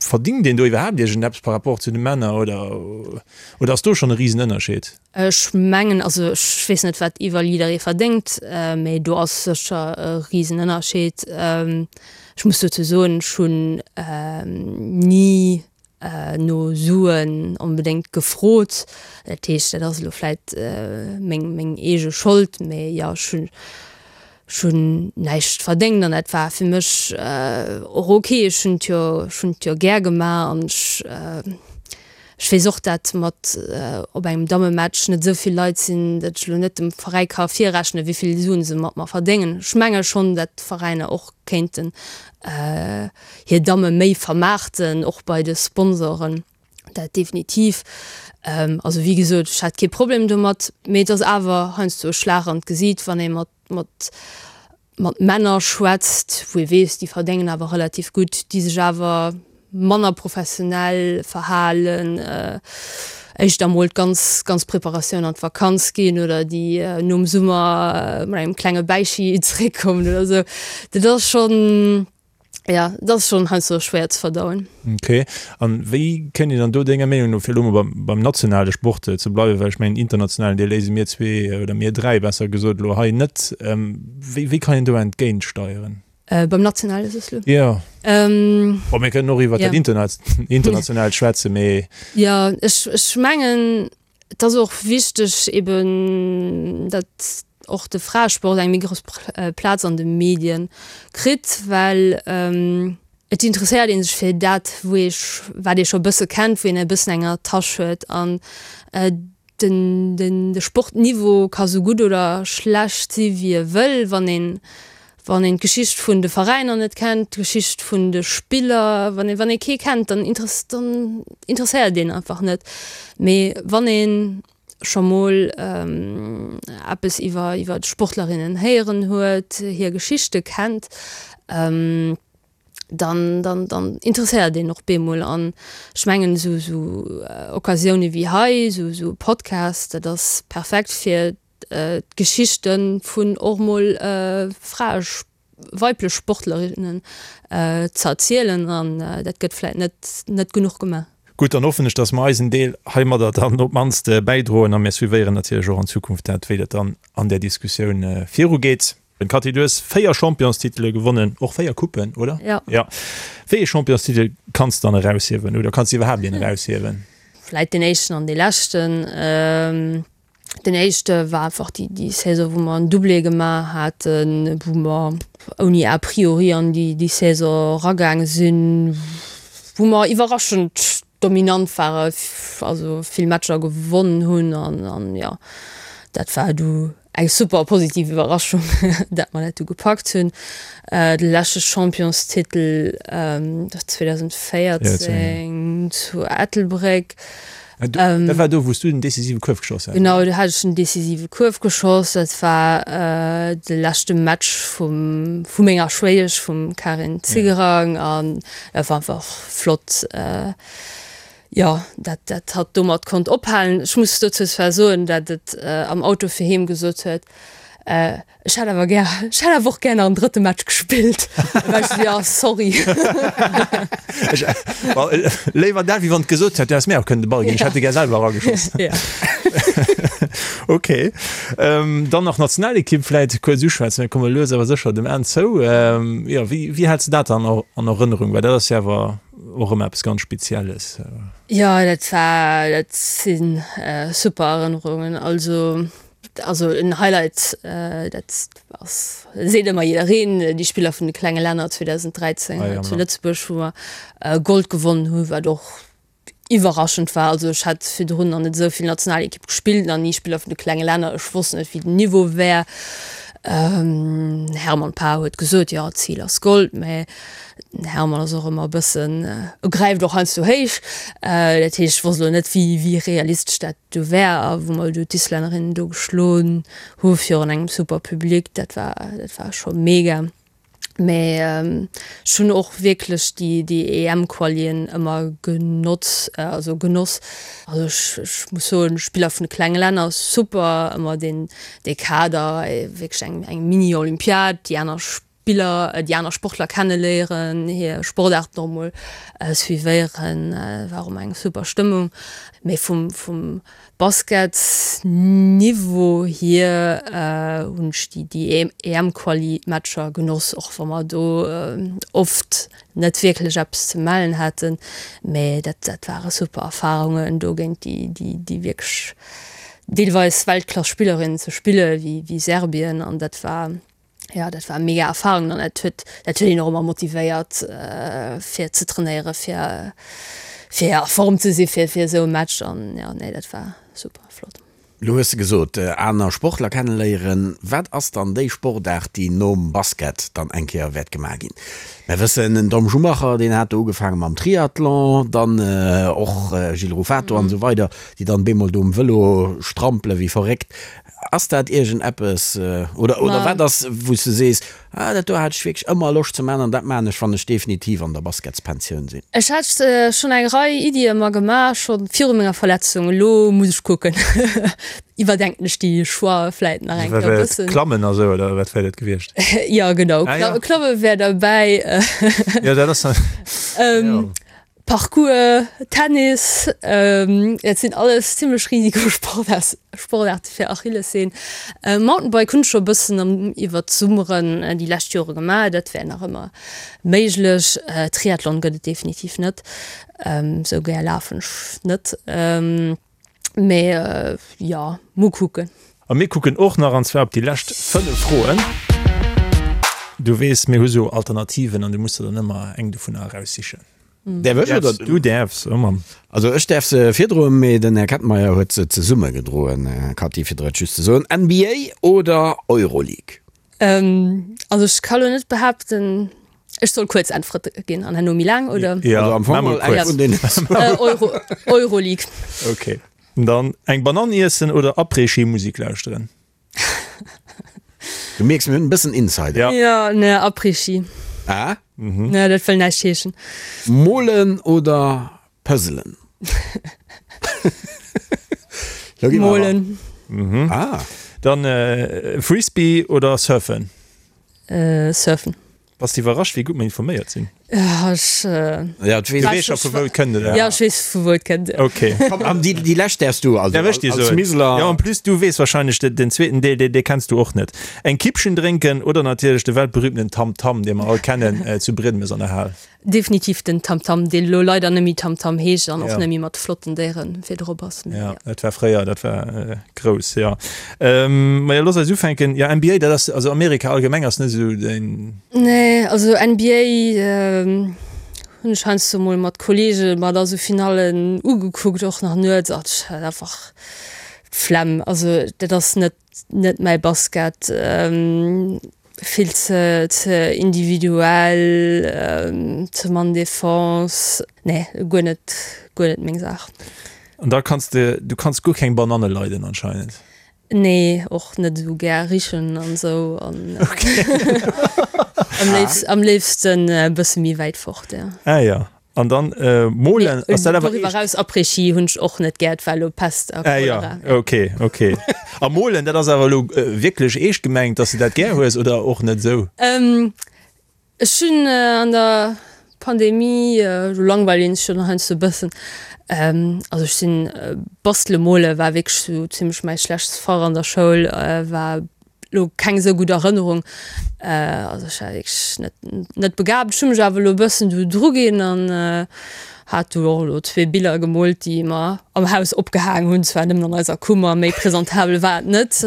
Verdingt een do iwwerhaapt iergendeppes par rapport zu de Männer oder oder ass do schonn e Risenënnerscheed? Ech mengen, also ech weess net wat iwwer jidderee verdéngt, mee do ass sécher e Risenënnerscheed. Ech muss dozou soen, ech hunn ni no Suen onbedéngt gefrot. Dat heescht, dat ass elo vläit meng, meng eege Schold, mee jo, ech hunn, ech hunn näischt verdéngt an dat war fir mech och ok. Ech hunn et jo, ech hunn et jo gär gemaach an ech, ech weess och, dat mat op engem Dammematch net esou vill Leit sinn, dat ech elo net dem Veräi ka virrechnen, wéi vill Suen se mat mer verdéngen. Ech menge schonn, dat d'Veräiner och kéinten hir Damme méi vermaarten, och bei de Sponsoren, dat definitiv. Also wéi gesot, ech hat kee Problem domat, mee et ass awer heiansdo e Schlag an d'Gesiit, wann ee mat, mat, mat Männer schwätzt, wou ee weess, déi verdéngen awer relativ gutt, déi sech awer manner professionell verhalen, éischter emol d'ganz, ganz Preparatioun an d'Vakanz ginn oder déi nom Summer mat engem klenge Bäichi zeréckkommen oder esou. Dat ass schonn, jo, dat ass schonn heiansdo schwéier ze verdauen. Ok. An wéi kënnt een dann do denger Meenung no, fir elo mol beim, beim nationale Sport ze bleiwen, well ech mengen internationalen, dee léise mir zwee oder mir dräi besser gesot elo hei net, wéi, wéi kann een do entgéintsteieren? Beim nationale soss lo? Jo. Bon, mir kënnen och iwwer dat internationaalt schwätzen, mee. Jo, ech, ech mengen, et ass och wichteg eben, datt och de Fraesport eng méi grouss Plaz an de Medien kritt, well et interesséiert ee sech fir dat, wou ee, wat ee scho e bësse kennt, wou een e bëssen eng Attache huet. An Den, den, de Sportniveau ka sou gutt oder schlecht si wéi e wëll, wann een, wann een d'Geschicht vun de Veräiner net kennt, d'Geschicht vun de Spiller, wann ee, wann ee kee kennt, dann interess, dann interesséiert een einfach net. Mee wann ee scho mol eppes iwwer, iwwer d'Sportlerinnen héieren huet, hir Geschichte kennt, dann, dann, dann interesséiert een och bemol. An ech mengen esou, esou Occasioune wéi hei, esou, esou e Podcast, dat ass perfekt fir d'Geschichte vun och mol Frae, weiblech Sportlerinnen ze erzielen. An dat gëtt vläit net, net genuch gemaach. Gutt, dann hoffen ech, dass mer eisen Deel heimadder dann op d'mannst bäidroen a mir suivéieren natierlech och an Zukunft dat, wéi dat dann an där Diskussioun virugeet. Cathy, du hues 4 Championstitele gewonnen, och 4 Coupen, oder? Ja. Ja. Wéi ee Championstitel kanns de dann eraushiewen oder kanns de iwwerhaapt een eraushiewen? Vläit deen éischten an dee leschten. Den éischte war einfach déi, déi Saison, wou mer en Doublé gemaach haten, wou mer ouni a priori an déi, déi Saison eragaange sinn, wou mer iwwerraschend dominant ware, also vill Matcher gewonnen hunn an, an jo, dat war du eng super positiv Iwwerraschung, dat mer dat du gepackt hunn. De leschte Championstitel 2014 zu Ettelbréck. Dat war do, wou s du den decisive Kuerf geschoss has? Genau, do hat ech den decisive Kuerf geschoss. Dat war de leschte Match vum, vu menger Schwéiesch, vum Karin Zigerang an dat war einfach flott. Jo, dat dat hatt domat konnt ophalen. Ech muss dozou zwar soen, dat et am Auto fir heem gesot huet, Ech hätt awer gär, ech hätt awer och gär nach en drëtte Match gespillt. Da war ech esou, jo, sorry. Ech, léiwer dat, wéi wann et gesot hätt, du häss mir och kënnen de Ball ginn, ech hätt e gär selwer erageschoss. Ja. Ok. Dann nach Nationalekipp vläit kuerz uschwätzen, mir komme lues awer sécher dem Enn zou. Jo, wéi, wéi häls de dat dann an Erënnerung? Well dat ass jo awer och ëmmer eppes ganz Spezielles. Jo, dat war, dat si super Erënnerungen. Also, also en Highlight, dat ass, seet ëmmer jiddereen, déi Spiller vun de klenge Länner 2013 hei zu Lëtzebuerg, wou mer Gold gewonnen hunn, wat och iwwerraschend war. Also ech hat virdrun nach net esou vill Nationalekipp gespillt, nach ni Spiller vun de klenge Länner, ech wosst net, wéi den Niveau wär. Hermann Paar huet gesot, jo, d'Zil ass Gold, mä den Hermann ass och ëmmer e bëssen, e gräift och heiansdo héich. Dat heescht, ech wosst elo net, wéi wéi realistesch dat do wär. A wou mer do d'Islännerinnen do geschloen hu virun engem super Public, dat war dat war scho mega. Mä ech hunn och wierklech déi déi EM-Qualien ëmmer genotz, also genoss. Also ech ech muss soen, Spiller vun de klenge Länner super, ëmmer deen dee Kader, wierklech eng eng Mini-Olympiad, déi aner Spiller, déi aner Sportler kenneléieren, hir Sportaarten och emol suivéieren, war och ëmmer eng super Stëmmung. Mee vum vum Basketsniveau hier hunn ech déi déi EM-Quali-Matcher genoss, och wa mer do oft net wierklech eppes ze mellen haten. Mee dat dat ware super Erfarungen, do géint déi déi déi wierklech deelweis Weltklass-Spillerinnen ze spille wéi wéi Serbien an dat war Jo, dat war mega Erfahrung an dat huet dat huet een och ëmmer motivéiert fir ze trainéieren, fir fir a Form ze si fir fir esou e Match an jo, nee dat war super flott. Lo hues de gesot, aner Sportler kenneléieren. Wat ass dann déi Sportaart, déi nom Basket dann eng Kéier wäert gemaach ginn? Mer wëssen, den Tom Schumacher, deen hat do ugefaange mam Triathlon, dann och Gilles Ruffato an esou weider, déi dann bemol do um Vëlo strampele wéi verréckt. Ass dat iergend eppes, oder, oder wat ass, wou s de sees, ah, dat do hat ech wierklech ëmmer Loscht ze maachen an dat maachen ech, wann ech definitiv an der Basketspensioun sinn? Ech hat schonn eng Rei Iddie mer gemaach, scho viru menger Verletzung. Elo muss ech kucken, iwwerdenken ech déi Choixë vläit nach eng Kéier e bëssen. Klammen a sou, oder wat wär dat gewiescht? Jo, genau, Klamme wär derbäi. Jo, dat ass. Jo. Parkour, Tennis, dat sinn alles zimlech Risikosportaarte fir Achillessehn. Mountainbike hunn ech scho e bëssen iwwer d'Summeren déi lescht Jore gemaach, dat wär nach ëmmer méiglech. Triathlon gëtt et definitiv net, sou gär lafen ech net. Mee jo, mol kucken. A mir kucken och nach, an zwar op déi lescht 5 Froen. Du weess, mir hu sou Alternativen an du muss der dann ëmmer eng dovunner eraussichen. Däerf ech oder? Du däerfs, oh Mann. Also ech däerf se virdroen, mee den Här Kettenmeyer huet se zesummegedroen. Cathy, fir der et just ze soen, NBA oder Euroleague? Also ech ka lo net behaapten, ech soll kuerz Äntwerte ginn an herno méi laang, oder? Jo, Also am Fong maa mol mol eng kuerz. vun deenen zwou. Euro, Euroleague. Ok. Dann eng Banann iessen oder Après-Ski-Musik lauschteren? Du mierks, mir hunn e bëssen Insider. Ja. Jo, ne, Après-Ski. Ah? Ne, dat wëll näischt heeschen. Molen oder Puzzelen? Lo gi mer awer. Molen. Ah. Dann Frisbee oder Surfen? Surfen. Bass de iwwerrascht, wéi gutt mer informéiert sinn? Ja, ech. Ja, Du weess scho vu wou et kënnt, oder? Ja, ech weess vu wou et kënnt. Ok. Komm, an déi, déi lescht däerfs du, also Däerf ech déi als soen? Miseler. Ja, en plus du weess wahrscheinlech de, den zweeten Deel, dee, dee kenns du och net. Eng Kippchen drénken oder natierlech de weltberühmten Tam Tam, dee mer all kennen, zu Briedemes an der Hal. Definitiv den Tamtam, deen elo leider net méi Tamtam heescht an och net méi mat flotten Déieren fir drop ass. Jo, dat war fréier, dat war grouss, jo. Majo, looss eis ufänken. Jo, NBA, dat ass, also Amerika allgemeng ass net esou däin. Nee, also NBA hunn ech heiansdo mol mat Kollege mer da sou Finallen ugekuckt, och nach nuets, ach, ech hat einfach d'Flemm. Also dat ass net, net mäi Basket. Vill ze ze individuell, ze mann Defense. Nee, guer net, guer net meng Saach. An da kanns de, du kanns guer keng Bananne leiden anscheinend? Nee, och net esou gär richen an esou an am léifst, am léifsten e bësse méi wäit fort, ja. Ah ja. An dann molen, ass dat awer Doriwwer eraus Après-Ski hunn ech och net gär, et war elo Pest a Cholera. Ah ja, ok, ok. A molen, dat ass awer elo wierklech eescht gemengt, dass de dat gär hues oder och net esou? Ech hunn an der Pandemie, do langweilt een sech jo dann heiansdo e bëssen, also ech sinn, bastele mole war wierklech sou zimmlech mäi schlechtst Fach an der Schoul, war lo keng esou gutt Erënnerung. Also ech war wierklech net net begabt. Ech hu mech awer elo e bëssen do dru ginn an hat do och elo zwee Biller gemoolt, déi mer am Haus opgehaang hunn. Zwar nëmmen an eiser Kummer, méi presentabel war et net.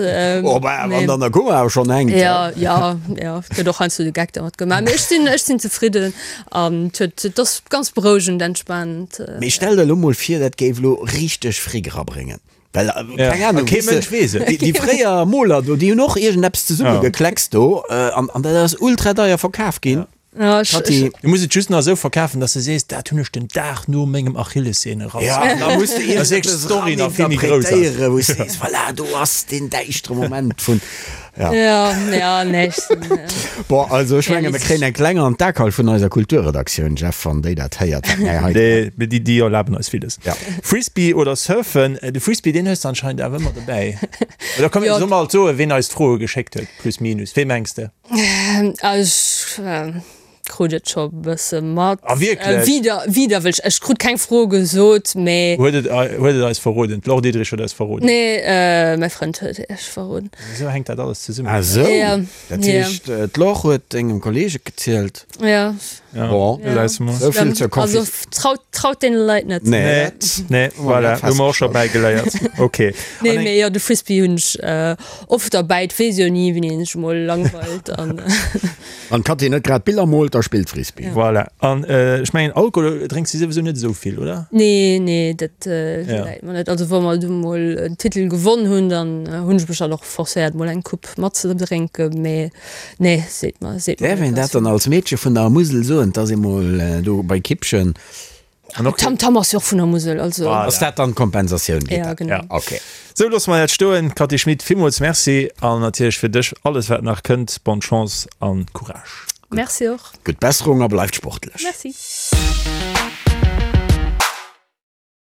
Oh bah, wann et an der Kummer awer schonn hänkt. Jo, jo, jo, et gëtt och heiansdo de Geck dermat gemaach. Mee ech sinn, ech sinn zefridden an et huet, et ass ganz berouegend, entspanend. Mee stell der elo mol vir, dat géif elo richteg Fric erabréngen. Well, keng Ahnung, kee Mënsch weess et. Déi fréier Moler do, déi hunn och iergendeppes zesummegekleckst do an an dat ass ultra deier verkaf ginn. Katy. Du muss et just nach esou verkafen, dass de sees, dat hunn ech den Dag no mengem Achillessehne rass. Ja, an da muss de iergendeppes eraninterpretéieren, wou s de sees, voilà, do ass deen däischtere Moment vun. Ja. Ja, ja, nee, ech sinn. Bon, also ech menge mir kréien eng kleng an d'Akal vun eiser Kulturredaktioun, Jeff, wann déi dat héiert, wat mär hei. Nee, mee déi, déi erlaben eis villes. Ja. Frisbee oder Surfen? De Frisbee, deen hues de anscheinend awer ëmmer dobäi. Oder komm, soll mer alt soen, ween eis d'Froe geschéckt huet, plus minus? Wee mengs de? Ech. Krut et scho bësse mat. Ah wierklech? Wieder, widerwëllech. Ech krut keng Fro gesot, mee. Huet et, huet et eis verroden? D'Laure Diederich huet eis verroden. Nee, mäi Frënd huet iech verroden. Esou hänkt dat alles zesummen. Ah sou? Ja. Dat heescht, d'Laure huet dengem Kolleeg et gezielt? Ja. Bon, esou vill zur Konfi. Also traut, traut deene Leit net. Nee, nee, voilà, hu mer och scho bäigeléiert. Ok. Nee, mee jo, de Frisbee hunn ech oft derbäi. Et weess jo ni, wéini een sech emol langweilt an. Wann d'Katy net grad Biller moolt, da spillt Frisbee. Voilà. An ech mengen Alkohol drénks de souwisou net esou vill, oder? Nee, nee, dat läit mer net. Also wa mer du mol en Titel gewonn hunn, dann hunn ech mech dann och forcéiert mol eng Coupe matzedrénken, mee nee, seet mer, seet mer Däerf een dat dann als Meedche vun der Musel soen, dass ee mol do bei Kippchen. An och Tam Tam ass jo och vun der Musel, also. Voilà. Ass dat dann d'Kompensatioun? Geet dat? Ja, genau. Ok. Sou, loosse mer dat stoen. Cathy Schmit, villmools Merci an natierlech fir dech alles wat nach kënnt, bonne Chance an Courage. Merci och. Gutt Besserung a bleift sportlech. Merci.